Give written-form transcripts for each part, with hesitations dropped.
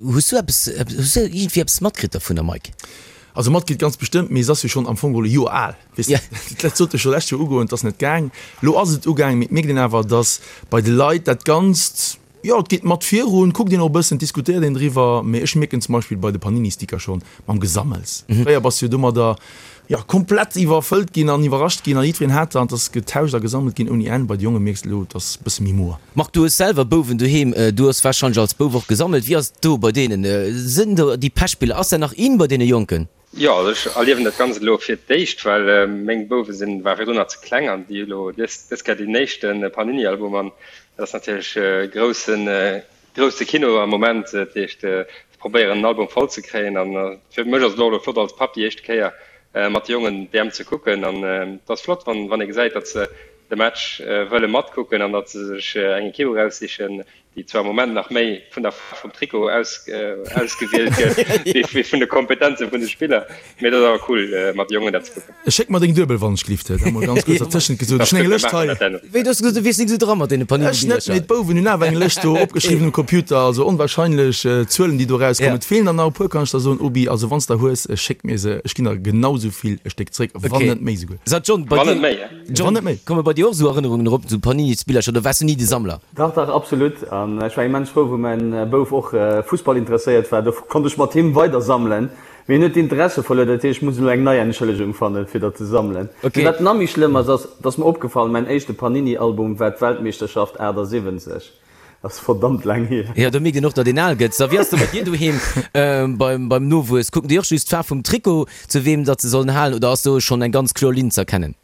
Hues du eppes, hues du iergendwéi eppes matkritt dovunner, Mike? Also matkritt ganz bestëmmt, mee se ass jo schonn am Fong geholl e Joer al, weess de. Dat sollt jo scho lescht Joer ugoen, et ass net gaang. Lo ass et ugaang, mee et mierkt een awer, datt bei de Leit dat Ganzt, jo, et geet mat virun, kuckt een och e bëssen, diskutéiert een driwwer. Mee ech mierken zum Beispill bei de Panini-Sticker schonn mam Gesammels. Fréier bass du jo domadder, jo, komplett iwwerfëllt ginn an iwwerrascht ginn an jiddwereen hat der an et ass getauscht a gesammelt ginn ouni Enn. Bei de Jonge mierks de elo, et ass e bësse méi moer. Marc, du hues selwer Bouwen doheem, du hues warscheinlech als Bouf och gesammelt. Wéi ass et do bei deenen? Sënn do déi Pechspiller? Ass dat nach in bei deene Jonken? Jo, also ech erliewen dat Ganzt elo fir d'éischt, well meng Bouwe sinn, ware virdrun nach ze kleng an déi hu elo dës dës Kéier deen éischte Panini-Album an dat ass natierlech groussen, grousse Kino am Moment. Dat heescht, se probéieren en Album voll ze kréien an fir mech ass et och elo flott als Papp déi éischte Kéier mat de Jongen d'EM ze kucken an et ass flott, wann wann ee gesäit, datt se de Match wëlle matkucken an datt se sech eng Ekipp eraussichen, déi zwar am Moment nach méi vun der Faarf vum Trikot ausgewielt gëtt, wéi vun de Kompetenze vun de Spiller. Mee et ass awer cool, mat de Jongen dat ze kucken. Schéck mer deng Duebel, wann ech gelift. Dat emol ganz kuerz dertëschent gesot. Ech hunn eng Lëscht hei. Wéi, du hues gesot, du wiers nik esou dra mat deene Panini-Billercher. Ech net, mee d'Bouwen hunn awer eng Lëscht do opgeschriwwen um Computer. Also onwahrscheinlech Zuelen, déi do erauskommen. Et feelen der nach e puer, kann ech der soen, Obi. Also wann s der hues, schéck mir se. Ech ginn der genau esou vill e Stéck zréck, wann net méi esouguer. Sot John, bei dir. John, komme bei dir och esou Erënnerungen erop, esou Panini-Spillercher, oder waars du ni de Sammler? Dach, dach, absolut. An ech war immens frou, wou mäin Bouf och Fussball interesséiert war. Do konnt ech mat him weider sammelen. Mee hien huet d'Interesse verluer, dat heescht, ech muss elo eng nei Entschëllegung fannen, fir dat ze sammelen. Mee wat nach méi schlëmm ass, ass, et ass mer opgefall, mäin éischte Panini-Album war d'Weltmeeschterschaft 78. Dat ass verdammt laang hier. Jo, do mierkt een och, datt een al gëtt. So, wéi ass et bei dir doheem beim Nowuess? Kucken déi och just d'Faarf vum Trikot, zu weem datt se sollen halen, oder ass do schonn eng ganz kloer Linn z'erkennen?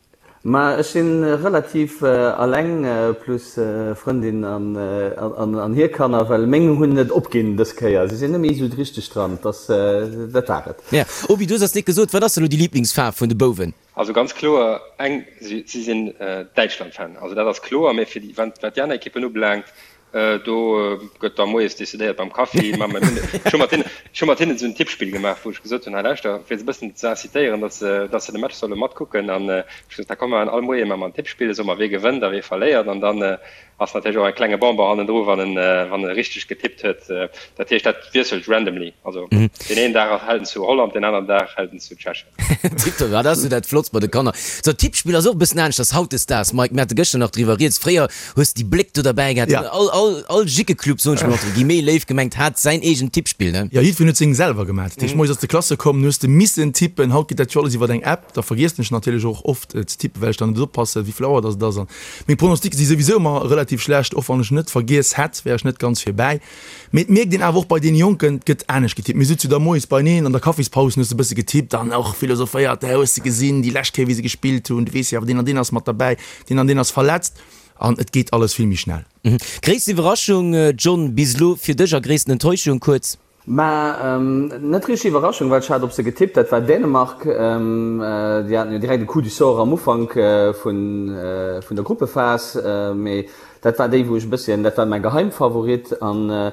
Ma ech si relativ alleng, plus Frëndin an hir Kanner, well meng hunn et opginn dës Kéier. Si sinn net méi esou richteg dran. Dat war et. Ja, Obi, du hues eis net gesot, wat ass elo déi Liblingsfaarf vun de Bouwen? Also ganz kloer eng, si sinn Däitschland-Fan, also dat ass kloer. Mee fir déi, wat déi aner Ekippen ubelaangt, do gëtt da moies decidéiert beim Kaffi. Ma mir hunn, ech hu mat hinnen, ech hu mat hinnen esou en Tippspill gemaach, wou ech gesot hunn, hei lauschter, fir se e bëssen ze incitéieren, datt se, datt se de Match solle matkucken. An ech hu gesot, da komm mer all Moie maache mer en Tippspill, soe mer, wie gewënnt a wie verléiert. An dann ass natierlech och e klenge Bonbon hannendru, wann en, wann e richteg getippt huet. Dat heescht, dat wiesselt randomly. Also deen een Dag hält en zu Holland, deen aneren Dag hält en zu Tschechien. Tiptop, dat ass jo dat Flottst bei de Kanner. Sou, Tippspill ass och e bëssen aneschters hautdesdaags, Mike. Mir hate gëschter nach driwwer rieds. Fréier hues de déi Bléck do derbäi gehat. Ja. All, all, all Jickeclub, soen ech mol entre guillemets, léif gemengt, hat säin eegent Tippspill, ne? Jo, jiddwereen huet seng selwer gemaach. Dat heescht, moies ass de Klasse komm, du hues de missen tippen. Haut geet dat jo alles iwwer eng App. Da vergiessen ech natierlech och oft ze tippen, well ech dann net oppassen, wéi vill Auer dass et ass. An meng Pronostiquë si souwisou ëmmer relativ schlecht. Och wann ech net vergiess hätt, wär ech net ganz virbäi. Mee et mierkt een awer och bei deene Jonken, et gëtt anescht getippt. Mir sutze jo da moies beineen an der Kaffispaus, hues de e bësse getippt an och philosophéiert, Hä, hues de gesinn déi lescht Kéier, wéi se gespillt hunn? Du weess jo awer, deen an deen ass mat derbäi, deen an deen ass verletzt. An et geet alles vill méi schnell. Gréissten Iwwerraschung, John, bis elo fir dech a gréissten Enttäuschung, kuerz? Mä net richteg Iwwerraschung, well ech hat op se getippt, dat war Dänemark. Déi haten jo direkt e Coup du sort am Ufank vun der Gruppephas. Mee dat war déi, wou ech e bësschen, dat war mäi Geheimfavorit. An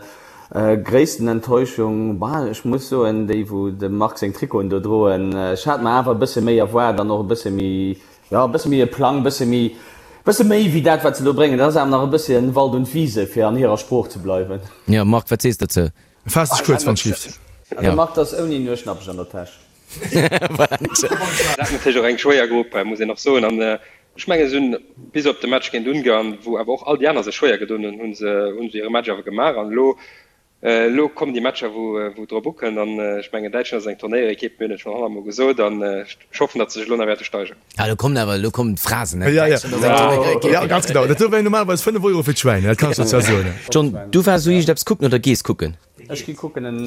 gréissten Enttäuschung, bah, ech muss soen, déi wou dem Marc seng Trikoten do droen. Ech hat mer awer e bësse méi erwaart an och e bësse méi, jo, e bësse méi e Plang, e bësse méi, e bësse méi wéi dat, wat se do bréngen. Dat ass awer nach e bësschen Wald und Wiese, fir an hirer Sprooch ze bleiwen. Jo, Marc, wat sees de dozou? Faass dech kuerz, wann schlift. De Marc ass ouni Nueschnappech an der Täsch. Dat ass natierlech och eng schwéier Grupp, muss een och soen. An ech mengen, se hunn bis op de Match géint Ungarn, wou awer och all déi aner sech schwéier gedoen hunn, hu se hu se hire Match awer gemaach. An elo, elo kommen déi Matcher, wou wou et drop ukënnt. An ech mengen, Däitschland ass eng Turnéierekipp, mir hunn et schonn honnertmol gesot. An ech hoffen, datt se sech elo nach wäerte steigeren. Ah, lo kommen awer, lo kommen d'Phrasen, ne? Ja, ja. Ja, ganz genau. Dat do wär normalerweis 5 Euro fir d'Schwäin, dat kann ech der zwar soen. John, du waars esou iergendeppes kucken oder gees kucken? Ech gi kucken en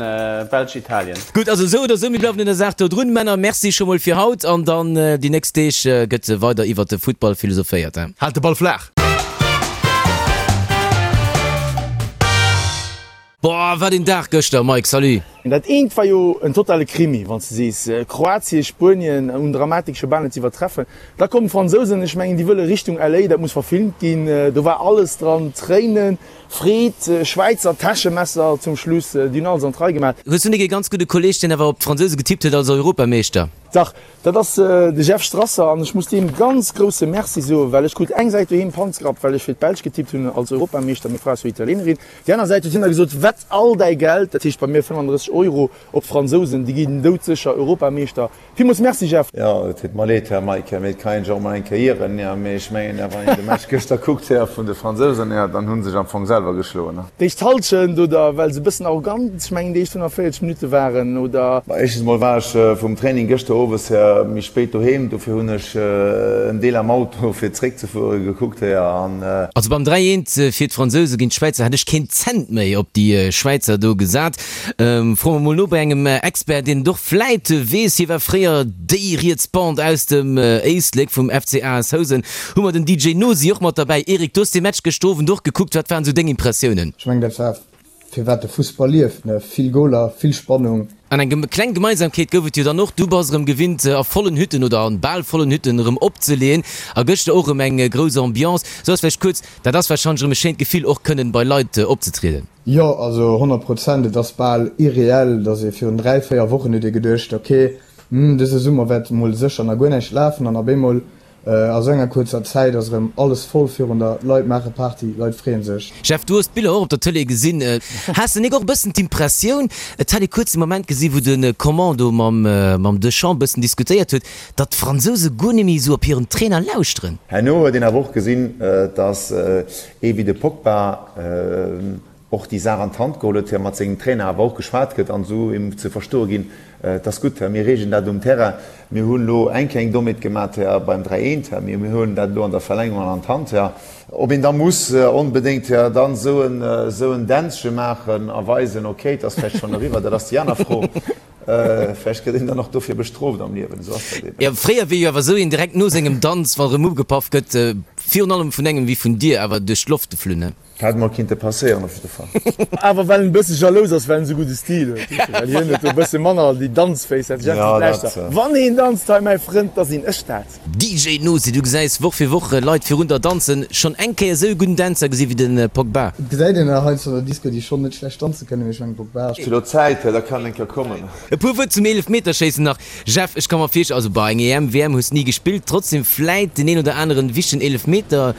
Belsch-Italien. Gutt, also esou oder esou, mir bleiwen un der Saach do drun. Männer, merci scho mol fir haut an dann déi nächst Deeg gëtt weider iwwert de Futtball philosophéiert, he? Haalt de Ball flaach! Boah, wat een Dag gëschter, Mike, salut! Dat eent war jo en totale Krimi, wann s de sees, Kroatien, Spuenien, un Dramatik scho bal net ze iwwertreffen. Da kommen d'Fransousen, ech mengen, déi wëlle Richtung LA, dat muss verfilmt ginn. Do war alles dran, Tréinen, Freed, Schwäizer Täschemesser zum Schluss, déi hunn alles an d'Rei gemaach. Hues du nik ee ganz gudde Kolleg, deen awer op d'Fransouse getippt huet als Europameeschter? Dach, dat ass de Jeff Strasser an ech muss deem ganz grousse Merci soen, well ech krut eng Säit doheem Panzgrapp, well ech fir d'Belsch getippt hunn als Europameeschter, meng Fra ass jo Italienerin. Déi aner Säit huet hien da gesot, Wett all däi Geld, dat heescht bei mir 35 Euro, op d'Fransousen, déi ginn doudsécher Europameeschter. Villmools Merci Jeff! Jo, et deet mer leed, Här Mike, mee et kann een sech och mol eng Kéier ieren. Jo, mee ech mengen, wann een de Match gëschter kuckt, Här, vun de Fransousen, jo, dann hu se sech am Fong selwer geschloen. D'éischt Halschent, oder well se e bëssen arrogant, ech mengen déi éischt 45 Minutte waren, oder? Ma éischtens mol war ech vum Training gëschter owes, Här, méi spéit doheem, dofir hunn ech en Deel am Auto fir zréckzefuere gekuckt, Här, an. Also beim 3, 1 fir d'Fransouse géint d'Schwäizer hätt ech keen Cent méi op déi Schwäizer do gesat. Froe mer mol no bei engem Expert, deen et och vläit weess. Hie war fréier déi riets Bande aus dem Éislek vum FC AS Housen. Hu mer den DJ Nosi och mat derbäi. Eric, du hues dee Match gëschter Owend och gekuckt. Wat waren esou deng Impressiounen? Ech mengen, dat war firwat de Fussball lieft, ne? Vill Goler, vill Spannung. An eng kleng Gemeinsamkeet gouf et jo dann och, Du bass erëm gewinnt a vollen Hütten oder an bal vollen Hütten erëm opzeleeën a gëschter och erëm eng grouss Ambiance. Sou ass vläicht kuerz, dat ass warscheinlech erëm e schéint Gefill och kënnen bei Leit opzetrieden. Jo, also 100 Prozent. Et ass bal irreell, datt ee virun 3, 4 Wochen huet ee geduecht, ok, hm, dëse Summer wäert mol sécher nach guer näischt lafen an op eemol a sou enger kuerzer Zäit ass erëm alles voll virun der, Leit maache Party, Leit freeën sech. Jeff, du hues d'Biller och op der Tëlee gesinn. Has de nik och e bëssen d'Impressioun, et hätt ee kuerz de Moment gesi wou de Coman do mam Deschamps bëssen diskutéiert huet, datt d'Fransouse guer net méi esou op hiren Trainer lauschteren? Herno huet een awer och gesinn, datt Ee wéi de Pogba och déi Saach an d'Hand geholl huet, mat sengem Trainer awer och geschwat gëtt an esou him ze verstoe ginn, Et ass gutt, mir reegelen dat um Terrain. Mir hunn elo eng kleng Dommheet gemat beim 3 eent, mee mir huelen dat elo an der Verlängerung an d'Hand. Ob een da muss onbedéngt dann esou en Dänzche maachen a weisen, ok, et ass vläicht schonn eriwwer, dat ass déi aner Fro. Vläicht gëtt een dann och dofir bestrooft am Liewen, esou ass dat eben. Jo, fréier wier jo awer esou een direkt no sengem Danz, wann erëm ugepaff gëtt, virun allem vun engem wéi vun dir, awer duerch d'Loft geflunn, ne? Hätt mol kinnte passéieren op jidde Fall. Awer well en e bësse jalous ass, well en esou gudde Stil huet, weess de, well hien huet do e bësse manner déi Danzféiss, dat Jeff seet, Lauschter, wann een danzt hei, mäi Frënd, da sinn ech dat. DJ Nosi, du gesäis Woch fir Woch Leit virun der danzen. Schonn eng Kéier esou e gudden Dänzer gesi wéi de Pogba? Et gesäit een der heiansdo an der Disco, déi schonn net schlecht danze kënnen, mee ech mengen Pogba. Ech hu lo Zäit, da kann eng Kéier kommen. E puer Wuert zum Eelefmeterschéissen nach. Jeff, ech ka mer virstellen, also bah, eng EM, WM hues ni gespillt, trotzdem vläit den een oder aneren wichtegen Eelefmeter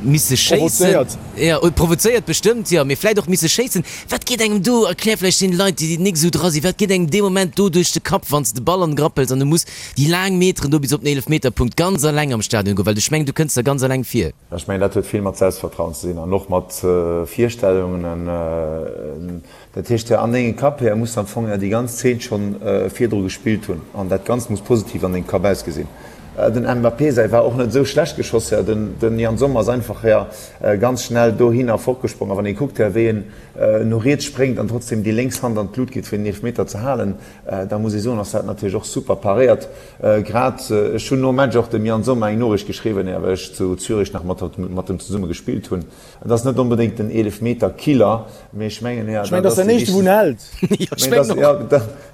misse schéissen. Provozéiert. Jo, provozéiert bestëmmt, jo, mee vläit och misse schéissen. Wat geet engem do, erklär vläicht deene Leit, déi nik esou dra sinn, wat geet engem dee Moment do duerch de Kapp, wann s de de Ball an de Grapp hëls an du muss déi laang Meteren do bis op den Eelefmeterpunkt ganz alleng am Stadion goen, well ech mengen, du kënns der ganz alleng vir. Ech mengen, dat huet vill mat Selbstvertrauen ze dinn an och mat Virstellungen. Dat heescht, an dengem Kapp här muss am Fong déi ganz Zeen schonn virdru gespillt hunn an dat Ganzt muss positiv an dengem Kapp ausgesinn. Den Mbappé säi war och net esou schlecht geschoss, här. Den Yann Sommer ass einfach här ganz schnell dohinner fortgesprong a wann ee kuckt, här, wéi en no riets spréngt an trotzdem déi lénks Hand an d'Lut geet fir den Eelefmeter ze halen, Da muss ee soen, ass dat natierlech och super paréiert. Grad ech hunn nom Match och dem Yann Sommer eng Noriicht geschriwwen, well ech zu Zürich nach mat mat em zesumme gespillt hunn. Et ass net onbedéngt den Eelefmeter-Killer, mee ech mengen, Ech mengen, dat ass den éischte wou en hält.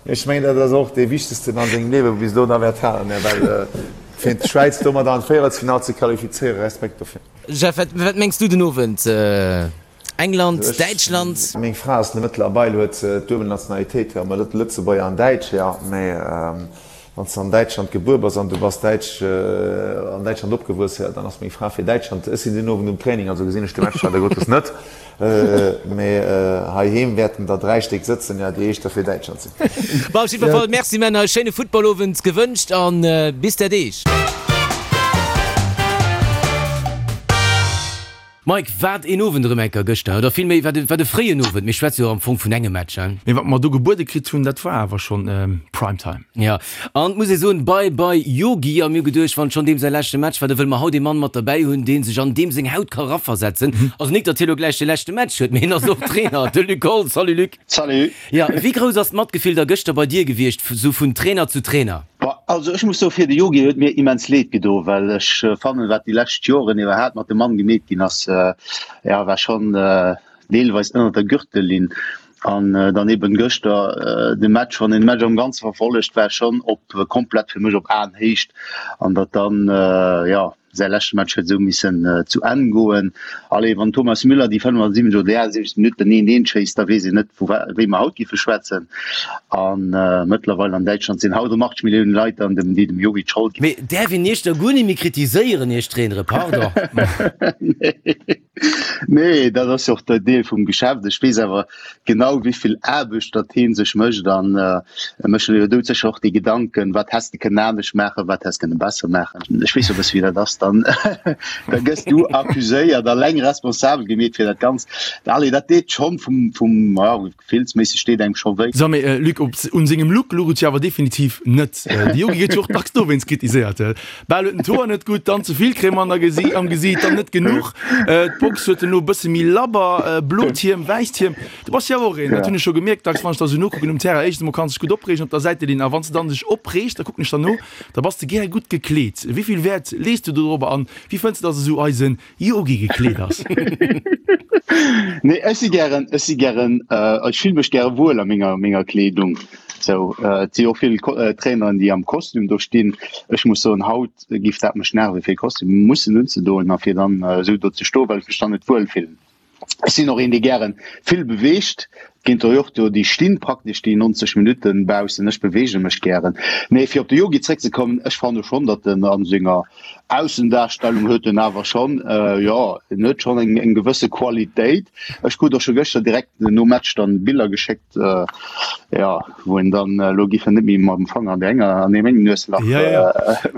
Ech mengen, dat ass och dee wichtegsten an sengem Liewe bis elo da wäert halen, well fir d'Schwäiz domat an d'Véierelsfinall ze qualifizéieren, Respekt dofir. Jeff, wat mengs du den Owend? England, Däitschland. Meng Fra ass mëttlerweil huet se d'duebel Nationalitéit, jo, mä Lëtzebuerger an Däitsch, jo. Mä wann s de an Däitschland gebuer bass an du bass Däitsch, an Däitschland opgewuess, jo, dann ass meng Fra fir Däitschland. Ech sinn den Owend um Training, also gesinn ech de Match leider Gottes net. Mä heiheem wäerten der 3 Stéck sëtzen, jo, déi éischter fir Däitschland sinn. Bon, op jiddwer Fall, Merci Männer, e schéine Footballowend gewënscht an bis der Deeg. Mike, wat een Owend erëm enker gëschter, oder villméi wat e, wat e fréien Owend. Mir schwätze jo am Fong vun engem Match, hein? Mee wat mer do gebuede kritt hunn, dat war awer schonn Prime Time. Jo, an et muss ee soen, Bye bye Yogi. A mir hu geduecht, wann et schonn deem säi leschte Match war, da wëlle mer haut ee Mann mat derbäi hunn, dee sech an deem seng Haut ka raversetzen. Also nik, datt hie lo gläich de leschte Match huet, mee hien ass och Trainer, de Luc Holtz. Salut Luc. Salut. Jo, wéi grouss ass d'Matgefill da gëschter bei dir gewiescht, sou vun Trainer zu Trainer? Bon, also ech muss soe fir de Yogi huet mir immens leed gedo, well ech fannen, wat déi lescht Joren iwwerhaapt mat dem Mann gemeet ginn ass, ja, war schonn deelweis ënner der Gürtellinn. An dann eben gëschter de Match, wann een de Match am Ganze verfollegt, war schonn op komplett fir mech op Aenhéicht an datt dann, jo, säi leschte Match huet esou missen zu Enn goen. Allez, wann Thomas Müller déi 75 oder déi 78 Minutten eent eent schéisst, da weess een net vu wéi mer haut giffe schwätzen. A mëttlerweil an Däitschland sinn haut ëm 80 Milliounen Leit an dem déi dem Jogi d'Schold ginn. Mee däerf een Iech da guer net méi kritiséieren, Iech Trainere, pardon? Nee, dat ass jo och de Deel vum Geschäft. Ech weess awer genau, wéi vill Aarbecht datt hee sech mécht an e mécht sech jo doudsécher och déi Gedanken, wat häss de kënnen anescht maachen, wat häss kënne besser maachen. Ech weess jo e bësse wéi dat ass, dann da gëss du accuséiert, alleng responsabel gemeet fir dat Ganzt. Allez, dat deet schonn vum, vum, ja, Gefillsméisseg deet engem scho wéi. So mee Luc, op un sengem Look luch et jo awer definitiv net. De Yogi gëtt jo och dacks dowéinst kritiséiert. Bal huet en d'Hoer net gutt, dann ze vill Crème an der Gesi am Gesiit, dann net genuch. D'Box huet en elo e bësse méi labber, blot Hiem, wäisst Hiem. Du bass jo awer och een, dat hunn ech scho gemierkt dacks, wann ech der esou nokucken um Terrain. Éischtens emol kanns dech gutt opreegen op der Säitelinn a wann s de dann dech opreegs, da kucken ech der no, da bass de gär gutt gekleet. Wéi vill Wäert lees du dorobber an wéi fënns de, dass esou eisen Yogi gekleet ass. Nee, ech si gären, ech si gären, ech fille mech gäre wuel a menger, menger Kleedung. Sou, et si och vill Traineren, déi am Kostüm do stinn. Ech muss soen, haut giff dat mech nerven, fir e Kostüm mussen unzedoen a fir dann esou do ze stoen, well ech mech dann net wuel fillen. Ech sinn och een, dee gären vill beweegt. Et ginn der jo och do, déi stinn praktesch déi 90 Minutten baussen. Ech beweege mech gären. Mee fir op de Yogi zréckzekommen, ech fanne schonn, datt en a senger Aussendarstellung huet en awer schonn, jo, en huet schonn eng eng gewësse Qualitéit. Ech krut och scho gëschter direkt nom Match dann Biller geschéckt, jo, wou en dann, elo giff en net méi mam Fanger an där enger, an deem engen Nueslach Ja, ja.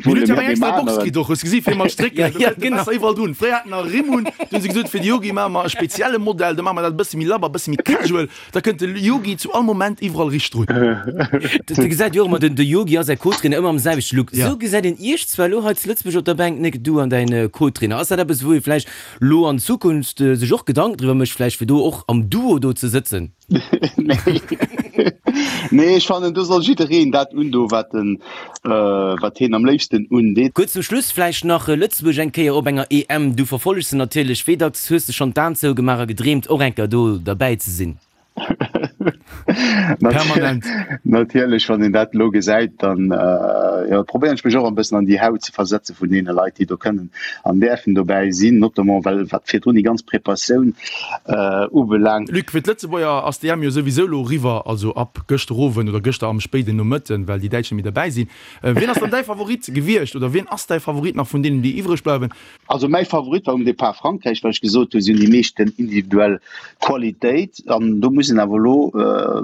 Mir hunn jo eng extra Box kritt och, hues gesi fir mat Strécken, do kënnt de besser iwwerall drun. Fréier haten mer Rimm un, du hunn se gesot, fir de Yogi maache mer e spezielle Modell, da maache mer dat e bësse méi labber, e bësse méi casual, da kënnt de Yogi zu all Moment iwwerall riicht drun. De gesäit jo och ëmmer, den de Yogi a säi Co-Trainer ëmmer am selwechte Look. Sou gesäit een iech zwar elo hei zu Lëtzebuerg op der Bänk, Nic, du an däin Co-Trainer. Ass dat eppes, wou ee vläicht lo an Zukunft sech och Gedanken driwwer mécht, vläicht fir do och am Duo do ze sëtzen? Nee, ech fannen do soll jiddereen dat undoen, wat en, wat hien am léifsten undeet. Kuerz zum Schluss vläicht nach, Lëtzebuerg eng Kéier op enger EM, du verfollegs se natierlech, wéi dacks hues de schonn d'Aen zougemaach a gedreemt och eng Kéier do derbäi ze sinn? Permanent. Natierlech, wann een dat elo gesäit, dann jo, probéieren ech mech och e bëssen an déi Haut ze versetze vun deene Leit, déi do kënnen an däerfen dobäi sinn, notamment well wat virdrun déi ganz Preparatioun ubelaangt. Luc, fir d'Lëtzebuerger ass d'EM jo souwisou elo eriwwer, also ab gëschter Owend oder gëschter am spéiden Nomëtten, well déi Däitsch net méi derbäi sinn. Wien ass dann däi Favorit gewiescht oder wien ass däi Favorit nach vun deenen, déi iwwreg bleiwen? Also mäi Favorit war um Depart Frankräich, well ech gesot hunn, si hunn déi meeschten individuell Qualitéit. An do muss een awer elo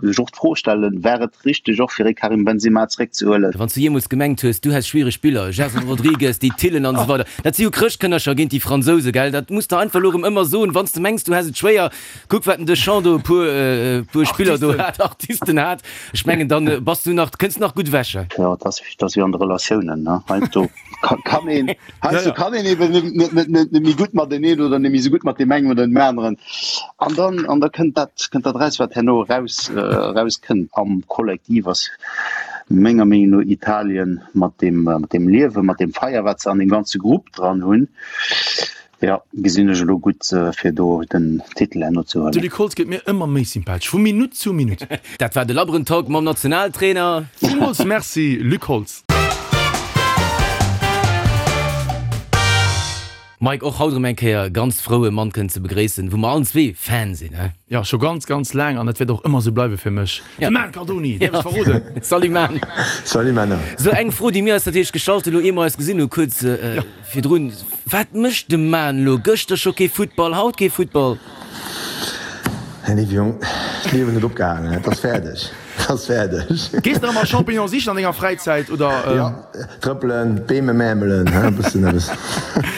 sech och d'Fro stellen, War et richteg och fir ee Karim Benzema zeréckzehuelen? Wann s du jeemools gemengt hues, du häss schwiereg Spiller, Gerson Rodrigues, déi Tillen an esou weider, dat si jo Chrëschtkënnercher géint déi Fransouse, gell? Dat muss de einfach elo erëm ëmmer soen, wann s de mengs, du häss et schwéier. Kuck, wat den Deschamps do e puer, e puer Spiller do hat, Artisten hat. Ech mengen, dann bass du nach, kënns nach gutt ewech. Jo, et ass, et ass wéi an de Relatiounen, ne? Heiansdo kann een, heiansdo kann een eben net, net, net, net, net méi gutt mateneen oder net méi esou gutt mat deem engen oder deem aneren. An dann, an da kënnt dat, kënnt dat eraus, wat herno eraus, erauskënnt. Am Kollektiv ass menger Meenung no Italien mat deem, mat deem Liewen, mat deem Feier, wat se an deem ganze Grupp dran hunn, jo, gesinn ech elo gutt, fir do den Titel herno ze De huelen. Luc Holtz gëtt mir ëmmer méi sympathesch, vu Minutt zu Minutt. Dat war de labberen Talk mam Nationaltrainer. Villmools Merci, Luc Holtz. Mike, och haut erëm eng Kéier ganz frou e Mann kënnen ze begréissen, wou mer allen zwee Fan sinn, he? Jo, scho ganz, ganz laang an dat wäert och ëmmer esou bleiwe fir mech. De Man Cardoni, däerf ech verroden? Salut Man! Salut Männer! Sou, eng Fro, déi mir eis natierlech gestallt hunn, elo ier mer eis gesinn hu kuerz virdrun, Wat mécht de Man elo? Gëschter scho kee Futtball, haut kee Futtball? Här Léiwe Jong, d'Liewen huet opgehaangen, et ass fäerdeg, et ass fäerdeg. Gees de nach emol Champignons sichen an denger Fräizäit, oder? Jo, trëppelen, d'Beem emämelen, e bëssen eppes,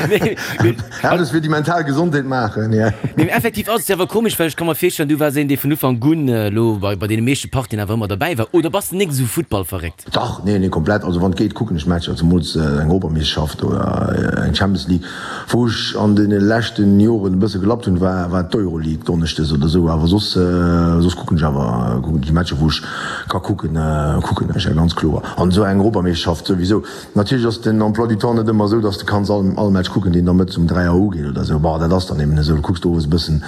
eppes fir déi mental Gesondheet maachen, jo. Mee effektiv ass et jo awer komesch, well ech ka mer virstellen, du waars een, dee vun Ufank un elo bei deene meeschte Partien awer ëmmer derbäi war, oder bass de nik esou futtballverréckt? Dach, nee, nee, komplett. Also wann et geet, kucken ech Matcher, zemools eng Europameeschterschaft oder eng Champions League. Wou ech an deene leschten Joren e bësse gelappt hunn, war war d'Euroleague donneschdes oder esou. Awer soss. Soss kucken ech awer déi Matcher wou ech ka kucken, kucken ech, ja ganz kloer. An esou eng Europameeschterschaft souwisou. Natierlech ass den Emploi du temps net ëmmer esou, dass de kanns all all Match kucken, deen da mëttes um 3 Auer ugeet oder esou. Bon, dat ass dann eben esou. Du kucks owes e bëssen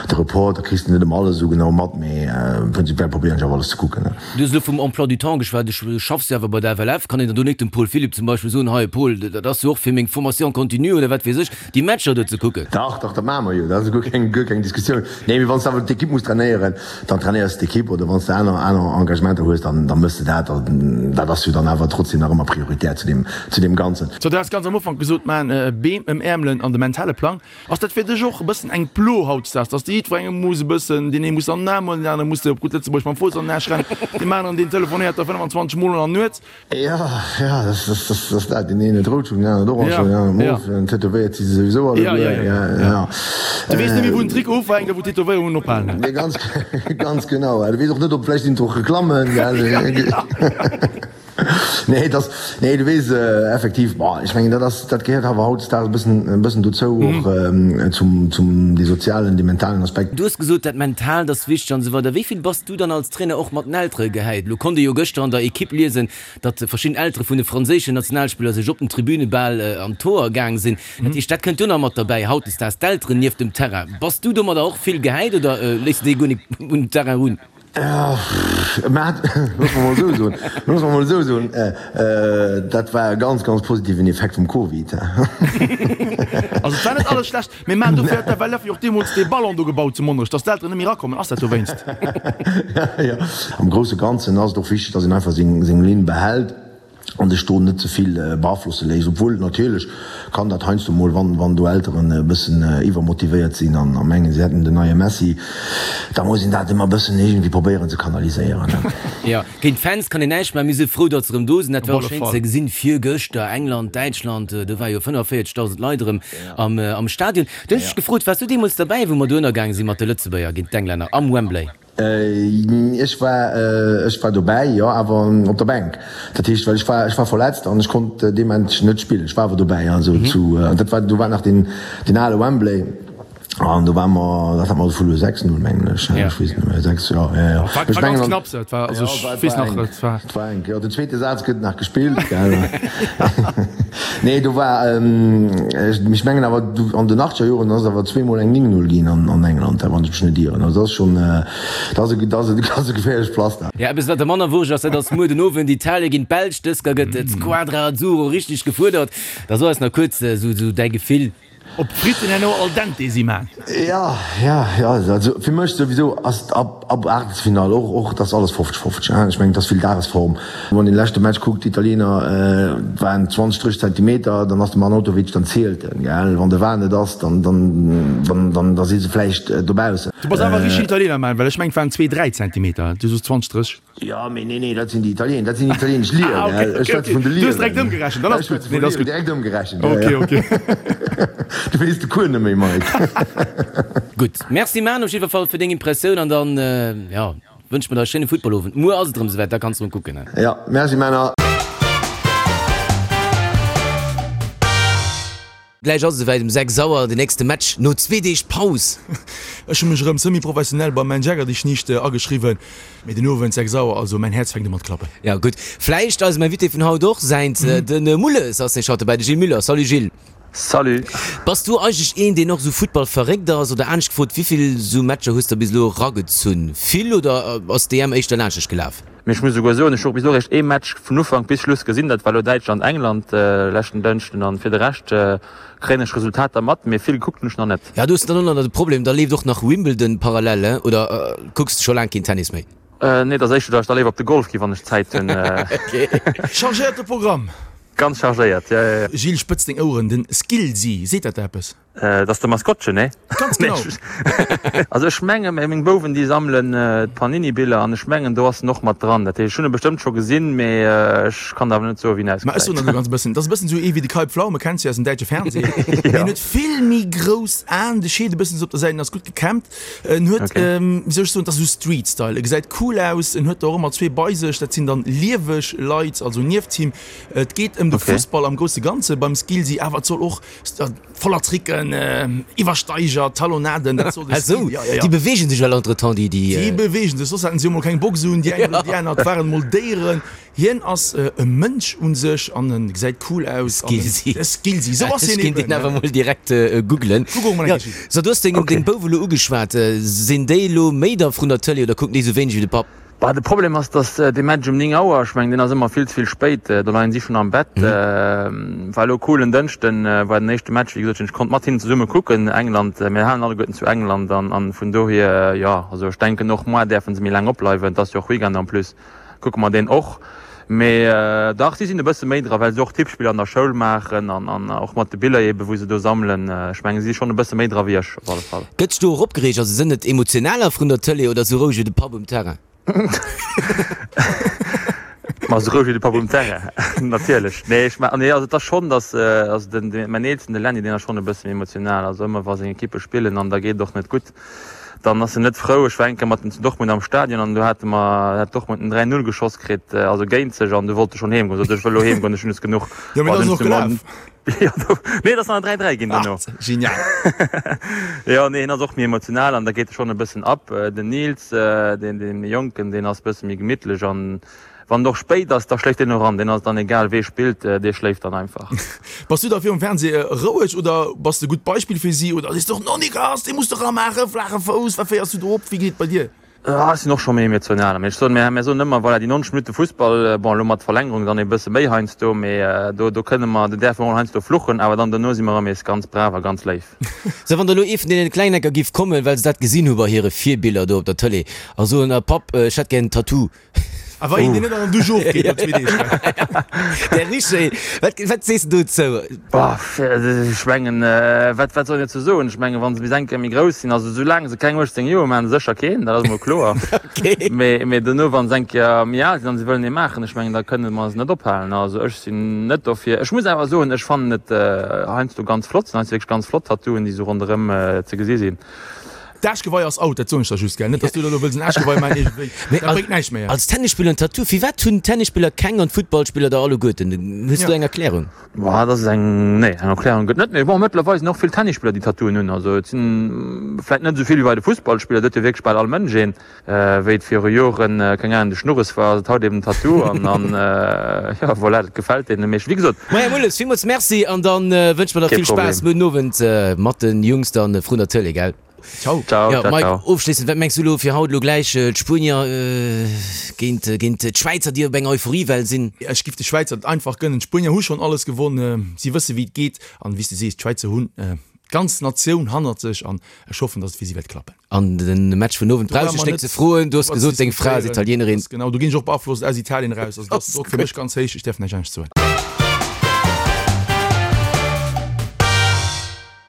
de Report, da kriss de net ëmmer alles esou genau mat, mee prinzipiell probéieren ech awer alles ze kucken. Du hues elo vum Emploi du temps geschwat. Du schaffs jo awer bei der FLF. Kann een dann do net dem Paul Philipp zum Beispill soen, hei Paul, dat ass jo och fir meng Formation continue oder wat weess ech, déi Matcher do ze kucken? Dach, dach, dat maache mer jo. Dat ass guer keng, guer keng Diskussioun. Nee, mee wann s de awer d'Ekipp muss trainéieren, dann trainéiers de d'Ekipp. Oder wann s de aner, aner Engagementer hues, dann, dann méchs de dat. Dat ass jo dann awer trotzdem nach ëmmer prioritär zu deem, zu deem Ganzen. So, du has ganz am Ufank gesot, man Beem ëmäermelen an de mentale Plang. Ass dat fir dech och e bëssen eng Plo hautdesdaags, dass de jiddwerengem muss e bëssen, deen ee muss an den Aarm huelen, deen anere muss de op gutt Lëtzebuergesch mam Fouss an den Aarsch rennen, deem aneren deen telefonéiert der 25 mol an der Nuet? Jo, jo, dat ass dat. Deen een huet rout Schung, deen aneren orange Schung, deen aneren mof, an tätowéiert si se souwisou alleguer. Jo, jo, jo. Du weess net méi, wou den Trikot ufänkt a wou d'Tätowéierungen ophalen. Nee, ganz, ganz genau. Du weess och net, ob vläicht sinn et och Reklammen, gell? Nee, et ass, nee, du weess, effektiv, bon, ech mengen, dat ass, dat gehéiert awer hautdesdaags e bëssen, e bëssen dozou, och zum, zum dee sozialen, dee mentalen Aspekt. Du hues gesot, dat Mentaalt ass wichteg an esou weider. Wéi vill bass du dann als Trainer och mat den Eltere gehäit? Elo konnt ee jo gëschter an der Equipe liesen, datt verschidden Eltere vun de franséischen Nationalspiller sech op den Tribüne bal an d'Hoer gaang sinn. Dat heescht, dat kënnt jo nach mat derbäi, hautdesdaags d'Elteren nieft dem Terrain. Bass du domadder och vill gehäit oder léiss de déi guer nik un den Terrain erun? Mä loosse mer mol esou soen, loosse mer mol esou soen, dat war e ganz, ganz positiven Effekt vum Covid. Also et war net alles schlecht, mee mä dofir huet d'FLF jo och deemools dee Ballon do gebaut zu Monnerech, datt d'Elteren net méi erakommen. Ass dat dowéinst? Jo, am grousse Ganzen ass et och wichteg, datt een einfach seng, seng Linn behält. an sech do net ze vill beaflosse léisst, obwuel natierlech kann dat heiansdo mol, wann wann do Elteren e bëssen iwwermotivéiert sinn an a mengen se hätten den neie Messi, da muss een dat ëmmer e bëssen iergendwéi probéieren ze kanaliséieren. Jo, géint d'Fans kann een näischt maachen, mir si frou datt se erëm do sinn. Dat war och schéin ze gesinn virgëschter, England, Däitschland, do ware jo 45.000 Leit erëm am am Stadion. Du hunn ech dech gefrot, waars du deemools derbäi wou mer do ënnergaange si mat de Lëtzebuerger géint d'Englänner am Wembley? Ech war, ech war dobäi, jo, awer op der Bänk. Dat heescht, well ech war, ech war verletzt an ech konnt dee Match net spillen. Ech war awer dobäi, also zu, dat war, do war nach deen, deen ale Wembley an do ware mer, dat hat mer verluer, 6, 0 mengen ech, ech weess net méi, 6, jo, jo, jo. War Ech ganz mengen an, knapps, dat war, also jo, ech war, weess war nach, enk, et war. et war enk, jo. Den zweete Saz gëtt nach gespillt, gell. Nee, do war, ech mengen awer, an den achtzeger Joren ass et awer zweemol eng 9, 0 ginn an England, wann ech mech net ieren. Also dat ass schonn, dat ass e, dat ass e geféierlecht Pflaster. Ja, eppes wat der manner wurscht ass, dat ass muer den Owend Italien géint d'Belsch. Dësker gëtt d'Squadra Azzurro richteg gefuerdert. Da so eis nach kuerz esou däi Gefill. Ob d'Fritten herno al dente si man? Ja, ja, ja, also fir mech souwisou ass et ab, ab Aachtelsfinall och, och, dat ass alles 50, 50, hein. Ech mengen, et ass vill Dagesform. Wann een de leschte Match kuckt, d'Italiener waren 20, 30 Zentimeter, dann ass de Arnautovic, dann zielt en, gell. Wann de VAR net ass, dann, dann, dann, dann, da si se vläicht dobaussen. Du bass awer e richtegen Italiener, man, well ech mengen, et waren zwee, dräi Zentimeter, du soos 20, 30. Jo, mee nee, nee, dat sinn déi Italiener, dat sinn italienesch Liren. Ah, okay, Ech schwätze vun de Du hues direkt Liren. ëmgerechent, dann ass Ech schwätze gutt. Nee, vun dat ass Liren, gutt. direkt ëmgerechent, ja, Okay, ja. okay. Du weess de Cours net méi, Mike. Gutt, Merci Manu op jiddwer Fall fir deng Impressioun an dann, jo, wënsche mer der e schéine Footballowend. Muer ass et erëm esouwäit, da kanns de erëm kucken. Jo, merci Männer. Gläich ass et esouwäit, um 6 Auer den nächste Match no zwee Deeg Paus. Ech hu mech erëm semi-professionell beim Menn Jäger dich nicht ageschriwwen, mee den Owend 6 Auer, also mäin Häerz fänkt u mat klappen. Ja gutt, vläicht eisem Invité vun haut och säint, de Mulles ass nämlech haut dobäi, de Gilles Muller. Salut Gilles. Salut. Bass du eigentlech een, deen och esou Futtball verréckt ass, oder anescht gefrot, wéivill esou Matcher hues de bis elo eragezunn? Vill oder ass d'EM éischter laanscht dech gelaf? Mee ech muss esouguer soen, ech hu och bis elo eréischt ee Match vun Ufank bis Schluss gesinn, dat war elo Däitschland-England leschten Dënschden. An fir de Rescht kréien ech Resultater mat, mee vill gekuckt hunn ech nach net. Ja, do hues de dann och nach de Problem, da leeft och nach Wimbledon parallel, he? Oder kucks de scho laang keen Tennis méi? Nee, et ass éischter, datt ech da léiwer op de Golf gi wann ech Zäit hunn. Chargéierte Programm! Ganz chargéiert, jo, jo, jo. Gilles, spëtz deng Oueren, den Skillsy, seet dat der eppes? Dat ass de Maskottchen, nee? Ganz genau. Also ech menge meng Bouwen déi sammelen d'Panini-Biller an ech mengen do ass en och mat dran. Dat heescht ech hunn e bestëmmt scho gesinn, mee ech kann der awer net soe wéi en Ma ech soen der ausgesäit. elo ganz e bëssen, dat ass e bëssen esou ee wéi de Kai Pflaume, kenns du aus dem däitsche Fernseh. Mee en huet vill méi grouss Aen, de Scheet e bëssen esou op der Säit, en ass gutt gekämmt. En huet, wéi soll ech soen, dat ass esou Street-Style, e gesäit cool aus, en huet der och ëmmer zwee bei sech, dat sinn dann lieweg Leit, also nieft him. Et geet ëm. ëm de Fussball am grousse Ganze beim Skillsy, awer et soll och voller Tricken, Iwwersteiger, Talonnaden, dat soll de Skill, ja, ja, ja. Déi beweegen sech well entretemps, déi, déi. Déi beweegen sech, soss haten si jo mol keng Box un, déi eng oder déi aner, et waren mol Déieren. Hien ass e Mënsch un sech an en gesäit cool aus. Skillsy. E Skillsy, sou ass hien eben. Ech kéint deen awer mol direkt googlen. Google mol eng Kéier. So, du hues deng, deng Bouf elo ugeschwat. Sinn déi elo méi da vrun der Tëlee oder kucken déi sou wéineg wéi de Papp? Bah, de Problem ass, dass dee Match um 9 Auer, ech mengen, deen ass ëmmer vill ze vill spéit, do leien si schonn am Bett. War elo cool, en Dënschden war den éischte Match, wéi gesot, ech konnt mat hinnen zesumme kucken, England, mir halen alleguerten zu England an vun dohier, jo, also ech denken och moar däerfe se méi laang opbleiwen, et ass jo och Weekend en plus. Kucke mer deen och. Mee dach, si sinn e bësse méi dra, well se och Tippspiller an der Schoul maachen an an och mat de Biller eebe wou se do sammelen. Ech mengen, si si schonn e bësse méi dra wéi ech op alle Fall. Gëtt sech do och opgereegt? Also sënn et emotionaler vrun der Tëlee oder sou roueg wéi de Papp um Terrain? Ma sou roueg wéi de Papp um Terrain, natierlech. Nee, ech nee, also et ass schonn, datt also den mäin Eelsten, de Lenny, deen ass schonn e bësse méi emotional. Also ëmmer wa seng Ekippe spillen an da geet et och net gutt, Dann ass en net frou. Ech war eng Kéier mat en zu Dortmund am Stadion an do hate mer, hat Dortmund en 3, 0 geschoss kritt, also géint sech an du wollt e schonn heem goen. Sot ech wëll elo heem goen, ech hunn es genuch. Jo, mee dat ass och gelaf. Jo, do, nee, et ass nach en 3, 3 ginn duerno. Ah, genial. Jo, nee, hien ass och méi emotional an da geet e schonn e bëssen ab. Den Nils, deen, dee méi Jonken, deen ass e bësse méi gemittlech an Wann et och spéit ass, da schléift deen och an. Deen ass et dann egal, wee spillt, dee schléift dann einfach. Bass du da virum Fernseh roueg oder bass de gutt Beispill fir si oder sees de och, No Nicolas, dee muss de ramaachen, flaache Fouss, wat féiers du do op, wéi geet et bei dir? Ech sinn och scho méi emotional, mee ech soen, mir mir soen ëmmer, voilà, déi 90 Minutte Fussball, bon elo mat Verlängerung dann e bësse méi heiansdo, mee do do kënne mer, do däerfe mer mol heiansdo fluchen, awer dann dono si mer erëm nees ganz brav a ganz léif. Sou, wann da lo ee vun deene Klengecker giff kommen, well se dat gesinn hu bei hire Virbiller do op der Tëlee a soen, Papp, ech hätt gär en Tattoo, A wa een deen net an der Dusch ofgeet no zwee Deeg. Der Richer, wat, wat sees de dozou? Boah, ech mengen, wat, wat soll een dozou soen? Ech mengen, wa se bis eng Kéier méi grouss sinn, also soulaang se keng 18 Joer hu, maachen se sécher keen, dat ass emol kloer. Okay. Mee, mee dono, wa se eng Kéier méi al sinn an se wëllen ee maachen, ech mengen, da kënne mer se net ophalen. Also ech sinn net dofir. Ech muss awer soen, ech fannen et heiansdo ganz flott, sinn heiansdo wierklech ganz flott Tattooen, déi esou ronderëm ze gesi sinn. D'Aarschgeweih ass out, dat soen ech der just, gell? Net, dass du da elo wëlls en Aarschgeweih maachen iergendwéi. Mee Dat bréngt näischt méi. als Tennisspiller en Tattoo, firwat hunn Tennisspiller keng an d'Footballspiller der alleguerten? Hues du eng Erklärung? Boah, dat ass eng, nee, eng Erklärung gëtt net. Mee bon, mëttlerweil sinn och vill Tennisspiller, déi Tattooen hunn. Also et sinn vläit net esou vill wéi bei de Fussballspiller, do huet jo wierklech bal all Mënsch een. Wéi et viru Joren, keng Ahnung, de Schnurres war, ass et haut eben den Tattoo an, an jo, voilà, dat gefält deene meeschten. Wéi gesot. Maja Mulles, villmools Merci an dann wënsche mer der Kee vill Spaass Problem. muer den Owend mat den Jungs dann vrun der Tëlee, gell? Ciao. Ciao, Jo, ciao, Mike, ciao. ofschléissend, wat mengs du elo fir haut elo gläich d'Spuenier géint géint d'Schwäizer, déi op enger Euphoriewell sinn? Ech giff de Schwäizer et einfach gënnen. D'Spuenier hu schonn alles gewonn, si wësse wéi et geet an wéi s de sees, d'Schwäizer hunn d'ganz Natioun hannert sech an ech hoffen, dass et fir si wäert klappen. An den Match vun Owend brauch ech net ze froen, du hues gesot deng Fra ass Italienerin. Genau, do ginn ech och beaflosst aus Italien eraus, also dat ass och fir mech ganz héich, ech däerf näischt anescht soen.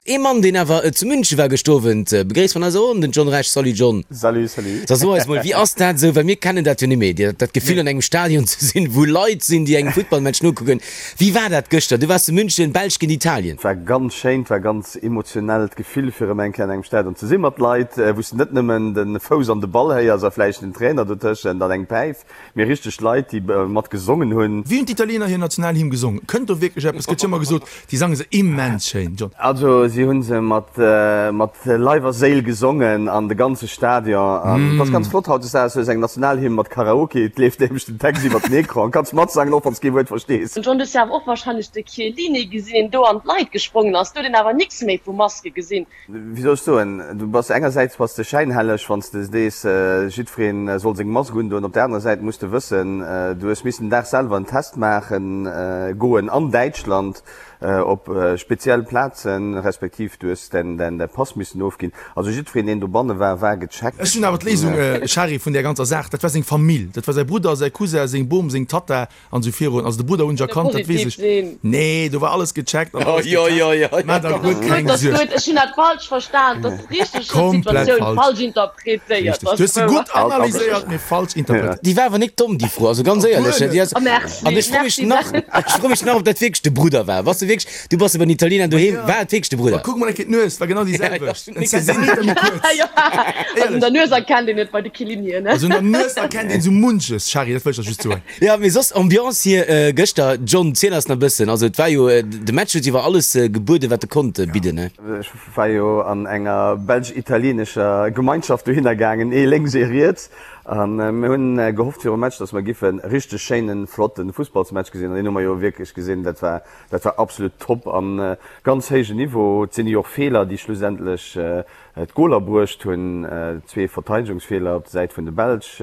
Ee Mann deen awer zu München war gëscht Owend, begréisst vun eiser Ronn den John Rech. Salut John. Salut, salut. Da so eis mol, wéi ass dat esou, well mir kennen dat jo net méi, dat Gefill an engem Stadion ze sinn, wou Leit sinn déi engem Futtballmatch nokucken. Wéi war dat gëschter? Du waars zu München, Belsch géint Italien. Et war ganz schéin, et war ganz emotionellt Gefill fir erëm eng Kéier an engem Stadion ze sinn mat Leit, wou s de net nëmmen de Fouss an de Ball héiers a vläicht den Trainer dotëschent an eng Päif, mee richteg Leit, déi mat gesongen hunn. Wéi hunn d'Italiener hir Nationalhymn gesongen? Kënnt do wierklech eppes? Gëtt jo ëmmer gesot, déi sange se immens schéin, John. Also si hu se mat Leif a Séil gesongen an de ganze Stadion. An et ass ganz flott hautdesdaags, hues eng Nationalhymn mat Karaoke, et leeft nämlech den Text iwwer den Ecran, kanns matsangen, och wann s kee Wuert verstees. John, du hues jo awer och wahrscheinlech de Chiellini gesinn, deen do an d'Leit gesprongen ass. Do huet een awer nix méi vu Maske gesinn. Wéi soll ech soen, du bass engersäits bass de schäinhelleg, wann s de sees, jiddweree soll seng Mask undoen. Op der anerer Säit muss de wëssen, du hues missen den Dag selwer en Test maache goen an Däitschland op speziell Plazen, respektiv du hues däin Pass missen ofginn. Also jiddwereen, deen dobanne war, war gecheckt. Ech hunn awer d'Léisung, Shari, vun där ganzer Saach, dat war seng Famill, dat war säi Brudder, säi Cousin, seng Bom, seng Tatta, An sou virun, also de Brudder hunn ech erkannt, dat weess ech. Nee, do war alles gecheckt an alles getest. Maach der guer keng Suerg. Ech hunn dat falsch verstan, dat ass richteg, ech hunn d'Situatioun falsch interpretéiert. Richteg, du hues se gutt analyséiert, mee falsch interpretéiert. Déi war awer nik domm, déi Fro, also ganz éierlech. Déi ass, Merci, an ech fro mech merci. nach, ech fro mech nach, ob dat wierklech de Brudder war. Bass de wierklech, du bass jo bei den Italiener doheem, war et wierklech de Brudder? oder? Ma kuck mol eng Kéier d'Nues, war genau déi selwecht. En Zentimeter méi kuerz. Also un der Nues erkennt een et bei de Chiellinien, ne? Also un der Nues erkennt een esou munches, Shari, dat wëll ech der just soen. Jo, mee soss Ambiance hier gëschter. John, ziel eis nach e bëssen. Also et war jo, de Match huet iwwer alles gebueden, wat e konnt bidden, ne? Ech war jo an enger belsch-italienescher Gemeinschaft dohinner gaangen, ee lénks, ee riets. A mir hunn gehofft virum Match, datt mer giffen e richteg schéinen, flotten Fussballsmatch gesinn. An deen hu mer jo wierklech gesinn. Dat war, dat war absolut top an ganz héijen Niveau. Et sinn jo och Feeler, déi schlussendlech d'Goler bruecht hunn. Zwee Verteidegungsfeeler op der Säit vun de Belsch,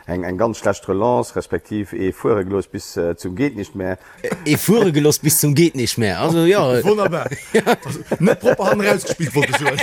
eng, eng ganz schlecht Relance, respektiv ee fuere gelooss bis zum geet nicht mehr. Ee fuere geloss bis zum geet nicht mehr. Also jo. Wonnerbar. Also net propper hannen erausgespillt, wollt ech soen.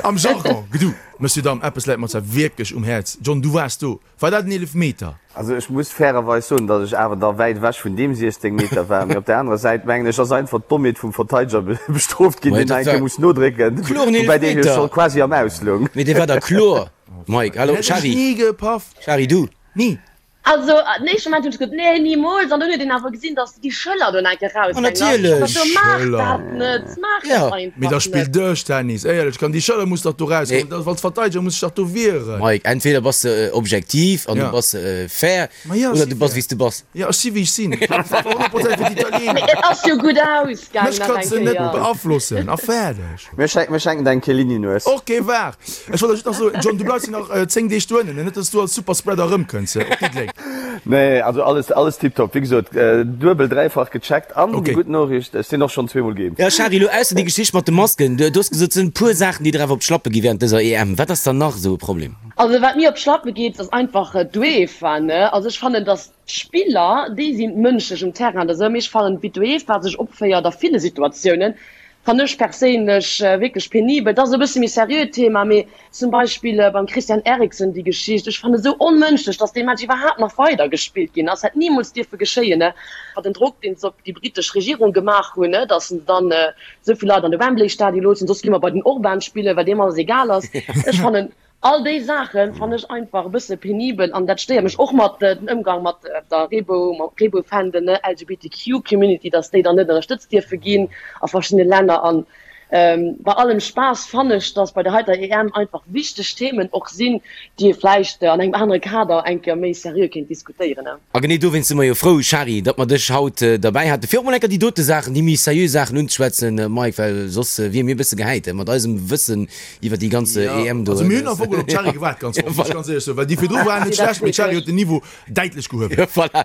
Am Jargon, gedu. Monsieur, Dame, eppes läit mer zwar wierklech um Häerz. John, du waars do. War dat en Eelefmeter? Also ech muss fairerweis soen, datt ech awer da wäit ewech vun deem 16 Meter war. Mee op der anerer Säit mengen ech, ass einfach d'Dommheet vum Verteideger bestrooft ginn, deen nach eng Kéier muss nodrécken, woubäi dee jo scho quasi am Aus loung. Mee dee war da kloer, Mike. Hallo, Shari. Ni gepaff. Shari, du? Ni. Also den éischte Moment hunn ech gesot, nee, nimools. An dunn huet een awer gesinn, datt déi Schëller do nach eng Kéier raushängen. An natierlech. Ech dacht, maach dat net, maach dat einfach net. Mee da spill Dëschtennis, éierlech, kann déi Schëller muss dach do rauskommen. Nee. Als Verteideger muss ech dach do wieren. Mike, entweder bass de objektiv an du bass fair, oder du bass wéi s du bass. Jo, ech si wéi ech sinn. Ech war 100 Prozent fir d'Italiener. Mee et ass jo gutt ausgaangen Mech nach eng kanns de net Kéier. beaflossen a fäerdeg. Mir schenken der eng Chiellini-Nues. Ok, waart. Ech wollt der just nach soen, John, du bleifs jo nach 10 Deeg dohennen, net dass du als Superspreader erëmkënns op Diddeleng. Nee, also alles, alles tiptop. Wéi gesot, duebel, dräifach gecheckt. An déi gutt Noriicht, ech sinn och schonn zweemol geimpft. Jo, Shari, elo ausser déi Geschicht mat de Masken, du hues gesot, et sinn e puer Saachen, déi der awer op d'Schlappe gi während dëser EM. Wat ass dann nach esou e Problem? Also wat mir op d'Schlappe geet, ass einfach d'UEFA, ne. Also ech fannen, dass D'Spiller, déi sinn mënschlech um Terrain oder esou, mee ech fannen, wéi d'UEFA sech opféiert a ville Situatiounen, fannen ech perséinlech wierklech penibel. Dat ass e bësse méi seriöt Thema, mee zum Beispill beim Christian Eriksen déi Geschicht, ech fannen esou onmënschlech, datt dee Match iwwerhaapt nach weider gespillt ginn ass, hätt nimools dierfe geschéien. Den Drock, deen se op déi britesch Regierung gemaach hunn, datt se dann esou vill Leit an de Wembley-Stadion loossen, soss gi mer bei den Orban spillen, well deem alles egal ass. Ech fannen, All déi Saache fannen ech einfach e bësse penibel an dat stéiert mech och mat den Ëmgang mat der Reebou, mat Reebou-Fändel, ne, LGBTQ Community, dass déi dann net ënnerstëtzt dierfe ginn a verschiddene Länner. An bei allem Spaass fannen ech, dass bei der heiter EM einfach wichteg Themen och sinn, déi ee vläicht an engem anere Kader eng Kéier méi seriö kéint diskutéieren. A genee dowéinst si mer jo frou, Shari, datt mer dech haut derbäi haten, fir och mol eng Kéier déi dote Saachen, déi méi seriö Saachen unzeschwätzen, Mike, well soss wier mir e bësse gehäit mat eisem Wëssen iwwer déi ganz EM do. Also mir hunn am Fong op d'Shari gewaart, ganz offen, muss ech ganz éierlech soen, well déi virdru waren net schlecht, mee d'Shari huet den Niveau däitlech gehuewen. Voilà.